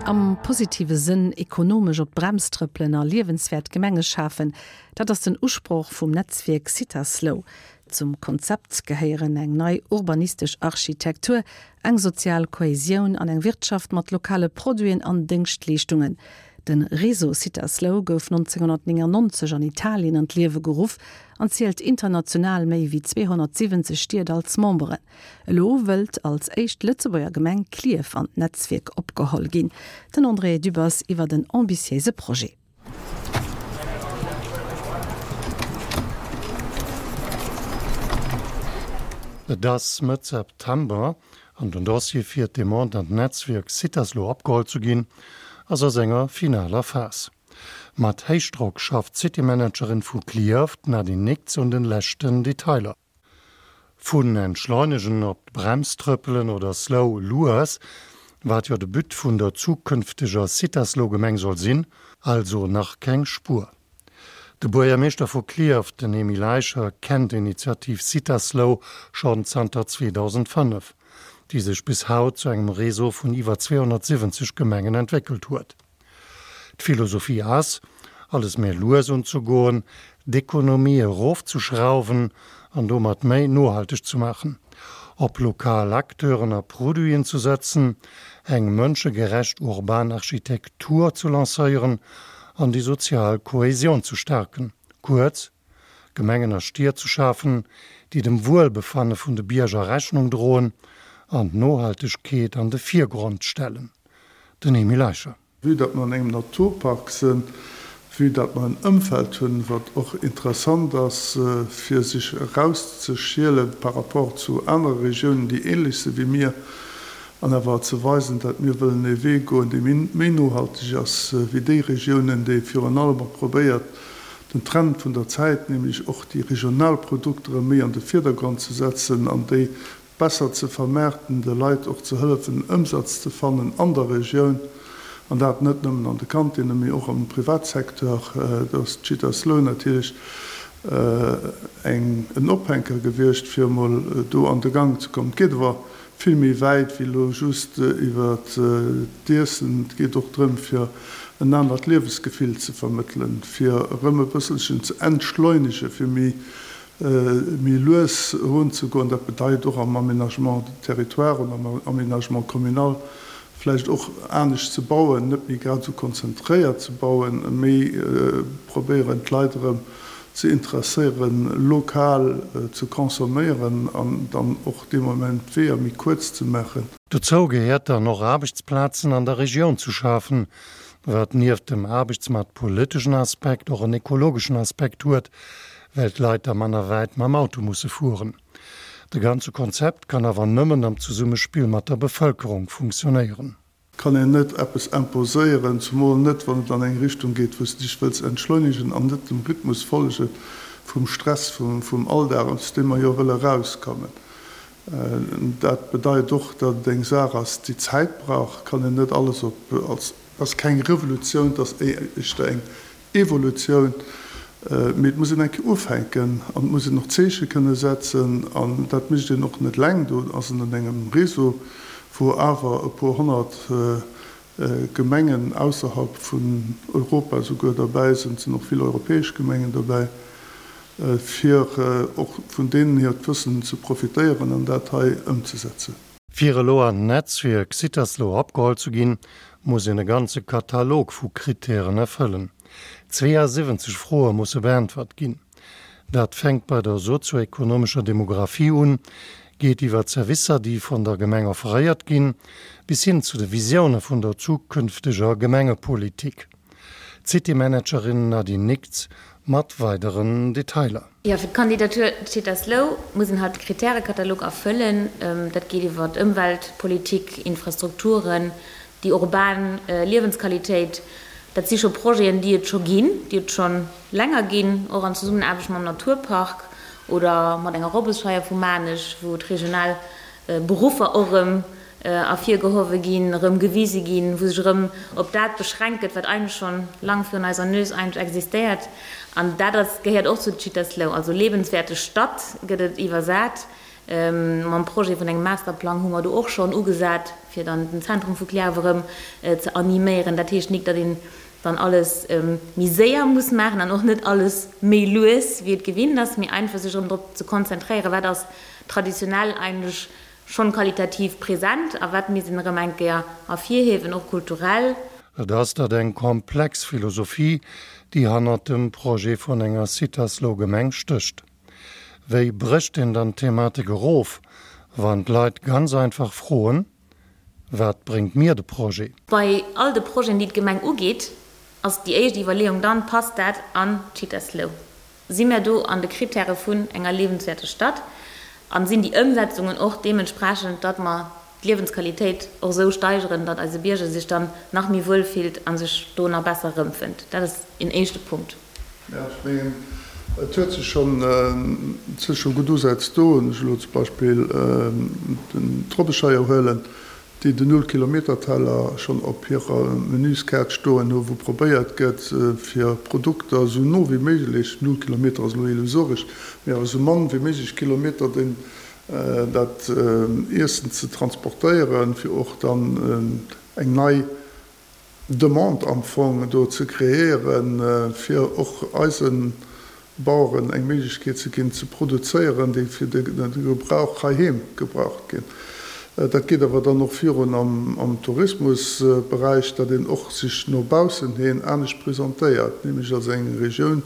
Am positive Sënn ekonomesch op d'Brems trëppelen a liewenswäert Gemenge schafen, dat ass den Usproch vum Netzwierk Cittaslow. Zum Konzept gehéieren eng nei urbanistesch Architektur, eng sozial Kohäsioun an eng Wirtschaft mat lokale Produiten an Déngschtleeschtungen. De Réseau Cittaslow gouf 1999 an Italien an d'Liewe geruff an zielt international méi wéi 270 Stied als Memberen. Elo wëllt als éischt Lëtzebuerger Gemeng Klierf an d'Netzwierk opgeholl ginn. Den André Dübbers iwwert en ambitiéise Projet. Et ass Mëtt September an den Dossier fir d'Demande an d'Netzwierk Cittaslow opgeholl ze ginn, ass a senger finaler Phas. Mat Héichdrock schafft d'Citymanagerin vu Clierf, d'Nadine Nickts, un den leschten Detailer. Vun entschleunegen, op d'Brems trëppelen oder slow, lues, wat jo de But vun der zukünfteger Cittaslow-Gemeng soll sinn, also nach keng Spuer. De Buergermeeschter vu Clierf, den Emile Eicher, kennt d'Initiativ Cittaslow schonn zanter 2005, déi sech bis haut zu engem Réseau vun iwwer 270 Gemengen entwéckelt huet. D'Philosophie ass, alles méi lues unzegoen, d'Ekonomie erofzeschrauwen an domat méi nohalteg ze maachen, op lokal Acteuren a Produiten ze setzen, eng mënschegerecht urban Architektur ze lancéieren an déi sozial Kohäsion ze staarken, kuerz, Gemengen a Stied ze schafen, déi dem Wuelbefanne vun de Bierger Rechnung droen an d'Nohaltegkeet an de Virgrond stellen. Den Emile Eicher. Vue datt mer an engem Naturpark sinn, vue datt mer en Ëmfeld hunn, wat och interessant ass, fir sech erauszeschiele par rapport zu anere Regiounen, déi ähnlech si wéi mir, an awer ze weisen, datt mir wëllen ee Wee goen, dee méi nohalteg ass wéi déi Regiounen, déi virun allem och probéiert, den Trend vun der Zäit, nämlech och déi regional Produkter erëm méi an de Virdergrond ze setzen an déi besser ze vermaarten, de Leit och ze hëllefen, Ëmsatz ze fannen an der Regioun, an dat net nëmmen an de Kantinnen, mee och am Privatsecteur. Do ass d'Cittaslow natierlech eng, en Ophänker gewiescht, fir emol do an de Gang ze kommen. Et geet awer vill méi wäit wéi elo just iwwer d'Iessen. Et geet och drëm, fir en anert Liewesgefill ze vermëttelen, fir erëm e bësselchen ze entschleunegen, fir méi méi lues erunzegoen. Dat bedeit och am Aménagement du territoire oder am Aménagement communal vläicht och anescht ze bauen, net méi grad esou konzentréiert ze bauen, méi probéieren d'Leit erëm ze interesséieren, lokal ze consomméieren an dann och dee Moment d'Weeër méi kuerz ze maachen. Dozou gehéiert dann och Aarbechtsplazen an der Regioun ze schafen, wat nieft dem aarbechtsmaartpoliteschen Aspekt och en ekologeschen Aspekt huet, well d'Leit da manner wäit mam Auto musse fueren. De ganze Konzept kann awer nëmmen am Zesummespill mat der Bevëlkerung funktionéieren. Kann een net eppes imposéieren, zumol net wann et an eng Richtung geet wou s de dech wëlls entschleunegen an net dem Rhythmus follege vum Stress vum Alldag, aus deem mer jo wëlle erauskommen. Dat bedeit och, datt et eng Saach ass déi Zäit brauch. Kann een net alles op als. Ass keng Revolutioun, et ass éischter eng Evolutioun, mee et muss een eng Kéier ufänken an et muss een och Zeeche kënne setzen an dat mécht een och net eleng. Do ass een an engem Réseau, wou awer e puer honnert Gemengen ausserhalb vun Europa souguer derbäi sinn. Et sinn och vill europäesch Gemengen derbäi, fir och vun deenen hiert Wëssen ze profitéieren an dat hei ëmzesetzen. Fir elo an d'Netzwierk Cittaslow opgeholl ze ginn, muss een e ganze Katalog vu Krittären erfëllen. 72 Froe musse beäntwert ginn. Dat fänkt bei der sozioekonomescher Demographie un, geet iwwer d'Servicer, déi vun der Gemeng offeréiert ginn, bis hin zu de Visioune vun der zukünfteger Gemengepolitik. D'Citymanagerin Nadine Nickts mat weideren Detailer. Jo, fir d'Kandidatur Cittaslow muss een halt de Kritärenkatalog erfëllen. Dat geet iwwer Ëmweltpolitik, Infrastrukturen, déi urban Liewensqualitéit. Dat si scho Projeten, déi et scho ginn, déi et scho länger ginn, och an Zesummenaarbecht mam Naturpark oder mat enger Robbesscheier vu Maarnech, wou d'regional Beruffer och erëm ervirgehowe ginn, erëm gewise ginn, wou sech erëm op dat beschränkt gëtt, wat eigentlech schonn lang virun eiser Nues eigentlech existéiert. An dat ass, gehéiert och zu Cittaslow, also lebenswerte Stadt gëtt et iwwersat. Mam Projet vun engem Masterplang hu mer do och schonn ugesat, fir dann den Zentrum vu Clierf erëm ze animéieren. Dat heescht nik, datt een dann alles méi séier muss maachen an och net alles méi lues, wéi et gewinnt ass, mee einfach sech erëm drop ze konzentréieren, wat ass traditionell eigentlech schonn qualitativ present a wat misst een erëm eng Kéier ervirhiewen, och kulturell. Et ass dat eng komplex Philosophie, déi hannert dem Projet vun enger Cittaslow-Gemeng stécht. Wéi brécht een dann d'Thematik erof, wann d'Leit ganz einfach froen, Wat bréngt mir de Projet? Bei all de Projeten, déi d'Gemeng ugeet, ass déi éischt Iwwerleeung dann, Passt dat an d'Cittaslow? Si mir do an de Kritäre vun enger liewenswäerter Stad? A sinn déi Ëmsetzungen och deementsprechend, datt mer d'Liewensqualitéit och esou steigeren, datt eise Bierger sech dann nach méi wuel fillt a sech do nach besser erëmfënnt? Dat ass een éischte Punkt. Jo, ech mengen, et huet sech schonn, et si scho gutt Usätz do. Wann ech elo zum Beispill den d'Robbescheier huelen, déi den Null-Kilometer-Teller schonn op hirer Menüskaart stoen hu, wou probéiert gëtt, fir Produkter esou no wéi méiglech, null Kilometer ass elo illusoresch, mee awer esou mann wéi méiglech Kilometer den dat Iessen ze transportéieren, fir och dann eng nei Demande am Fong do ze kreéieren, fir och eise Baueren eng Méiglechkeet ze ginn, ze produzéieren, déi fir de Gebrauch heiheem gebraucht ginn. Dat geet awer dann och virun am Tourismusberäich, datt een och sech no baussen hin anescht presentéiert, nämlech als eng Regioun,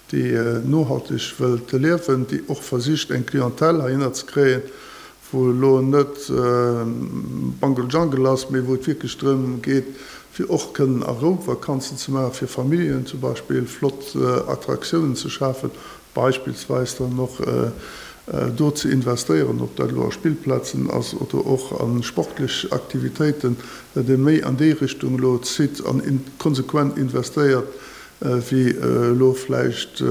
déi nohalteg wëllt liewen, déi och versicht, eng Clientèle heihinner ze kréien, wou elo net Bungle Jungle ass, mee wou et wierklech drëm geet, fir och kënnen a Rou Vakanzen ze maachen, fir Familljen zum Beispill flott Attraktiounen ze schafen, beispillsweis dann och do ze investéieren, ob dat elo a Spillplazen ass oder och a sportlech Aktivitéiten, datt ee méi an déi Richtung elo zitt an konsequent investéiert, wéi elo vläicht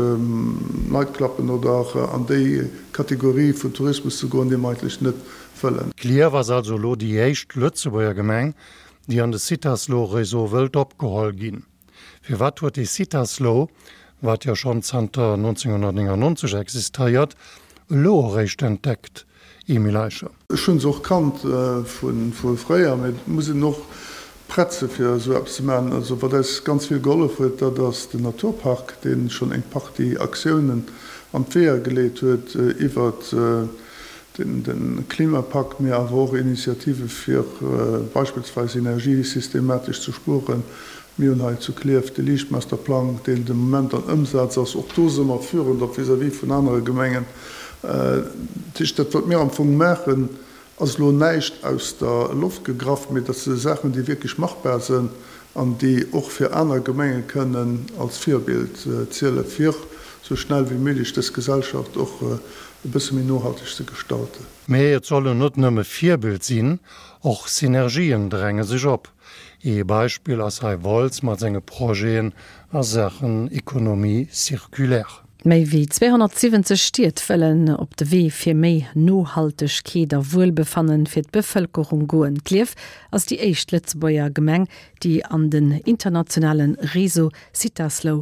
Nightcluben oder an déi Kategorie vun Tourismus ze goen, déi mer eigentlech net wëllen. Clierf ass also elo déi éischt Lëtzebuerger Gemeng, déi an de Cittaslow-Réseau wëllt opgeholl ginn. Firwat huet dee Cittaslow, wat jo schonn zanter 1999 existéiert, elo eréischt entdeckt, Emile Eicher? Ech hunn se och kannt vu fréier, mee et muss een och prett se fir esou eppes ze maachen. Also wat eis ganz vill gehollef huet, dat ass den Naturpark, dee schonn eng Partie Aktiounen an d'Weeër geleet huet iwwert de Klimapakt, mee awer och Initiative fir beispillsweis Energie systematesch ze spueren. Mir hunn hei zu Klierf de Liichtmasterplang, deen de Moment an Ëmsaz ass. Och do si mer führend, och vis-à-vis vun anere Gemengen. Dat heescht, dat wat mir am Fong maachen, ass elo näischt aus der Loft gegraff, mee dat si Saachen, déi wierklech machbar sinn an déi och fir aner Gemenge kënnen als Virbild zielen, fir esou schnell wéi méiglech dës Gesellschaft och e bësse méi nohalteg ze gestalten. Mee et sollen net nëmme Virbild sinn, och Synergien dränge sech op. Ee Beispill ass hei Wolz mat senge Projeten a Saachen Économie circulaire. Méi wéi 270 Stied wëllen op de Wee fir méi Nohaltegkeet a Wuelbefannen fir d'Bevëlkerung goen. Klierf ass déi éischt Lëtzebuerger Gemeng, déi an den internationale Réseau Cittaslow.